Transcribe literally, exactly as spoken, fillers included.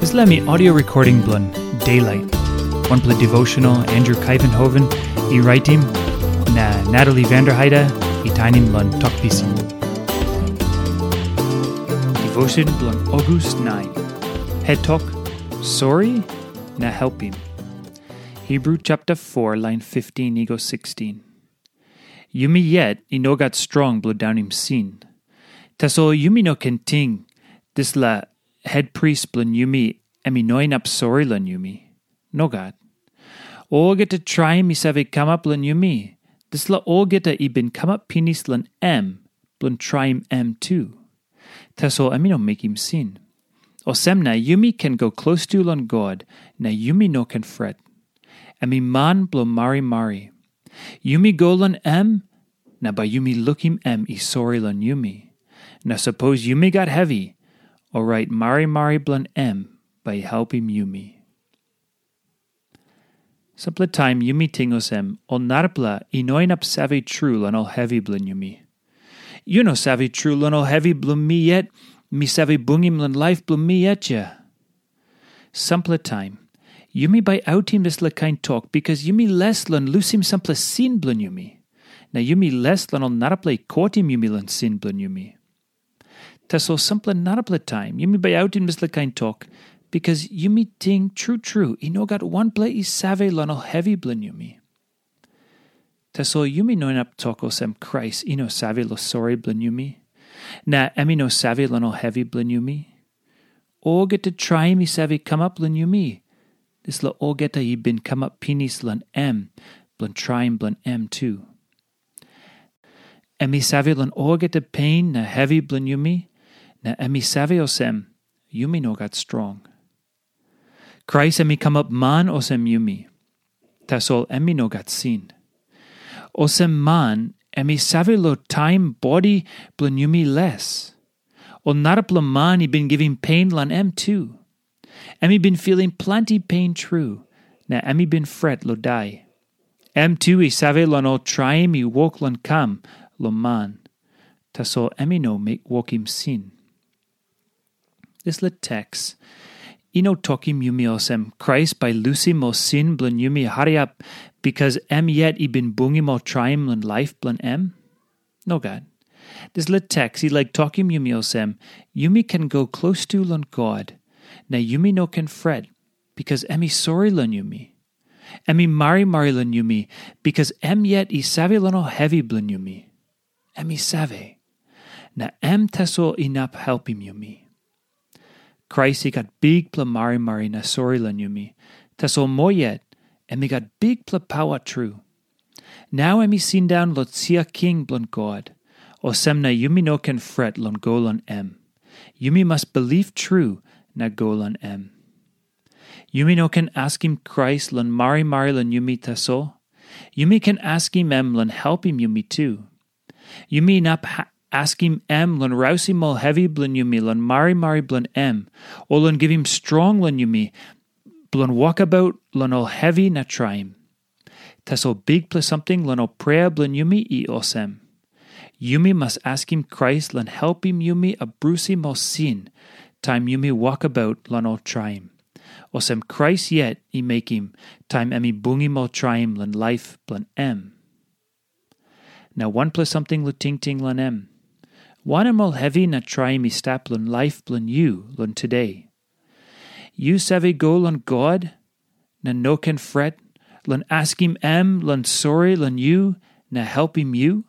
Dispela mi audio recording bilong Daylight, wanpela devotional Andrew Kaivenhoven i raitim, na Natalie Vanderheide i tainim long Tok Pisin. Devotion bilong August nine. Het tok, Sori na helpim. Hebrew chapter four, line fifteen i go sixteen. Yumi yet i no gat strong bilong daunim sin. Tasol yumi no ken ting dispela hetpris bilong yumi em i no inap sori long yumi. Nogat. Olgeta traim i save kamap long yumi, dispela olgeta i bin kamap pinis long em bilong traim em tu. Tasol em i no mekim sin. Olsem na yumi ken go klostu long God, na yumi no ken fret. Em i man bilong marimari. Yumi go long em, na bai yumi lukim em i sori long yumi. Na sapos yumi gat hevi, orait marimari bilong em bai i helpim yumi. Sampela taim yumi ting olsem, ol narapela i no inap save tru long ol hevi bilong yumi. Yu no save tru long ol hevi bilong mi yet, mi save bungim long laip bilong mi yet ya. Sampela taim, yumi bai autim dispela kain tok bikas yumi les long lusim sampela sin bilong yumi. Na yumi les long ol narapela i kotim yumi long sin bilong yumi. Tasol sampela narapela taim yumi bai autim dispela kain tok, bikas yumi ting tru tru i no gat wanpela i save long ol hevi bilong yumi. Tasol yumi no inap tok olsem Krais i no save long sori bilong yumi, na em i no save long ol hevi bilong yumi. Olgeta traim i save kamap long yumi, dispela olgeta i bin kamap pinis long em bilong traim bilong em tu. Em i save long olgeta pen na hevi bilong yumi, na em i save olsem, yumi no gat strong. Krais em i kamap man olsem yumi, tasol em i no gat sin. Olsem man, em i save long taim bodi bilong yumi les. Ol narapela man i bin givim pen long em tu. Em i bin filim planti pen tru, na em i bin fret long dai. Em tu i save long ol traim i wok long kam long man, tasol em i no wokim sin. Dispela teks i no tokim yumi olsem Krais bai lusim ol sin bilong yumi hariap, bikas em yet i bin bungim ol traim long laip bilong em. Nogat. Dispela teks i laik tokim yumi olsem, yumi ken go klostu long God, na yumi no ken fret, bikas em i sori long yumi. Em i marimari long yumi, bikas em yet i save long ol hevi bilong yumi. Em i save. Na em tasol inap helpim yumi. Krais i gat bikpela marimari na sori long yumi, tasol moa yet, em i gat bikpela pawa tru. Nau em i sindaun long sia king bilong God, olsem na yumi no ken fret long go long em. Yumi mas bilip tru na go long em. Yumi no ken askim Krais long marimari long yumi tasol. Yumi ken askim em long helpim yumi tu. Yumi inap askim em long rausim ol hevi bilong yumi long marimari bilong em, o long givim strong long yumi bilong wokabaut long ol hevi na traim. Tasol bikpela samting long ol prea bilong yumi i olsem. Yumi mas askim Krais long helpim yumi abrusim ol sin, taim yumi wokabaut long ol traim. Olsem Krais yet i mekim, taim em i bungim ol traim long laip bilong em. Na wanpela samting long tingting long em. Wanem ol hevi na traim i stap long laip bilong yu long tude? Yu save go long God, na no ken fret, long askim em long sori long yu, na helpim yu?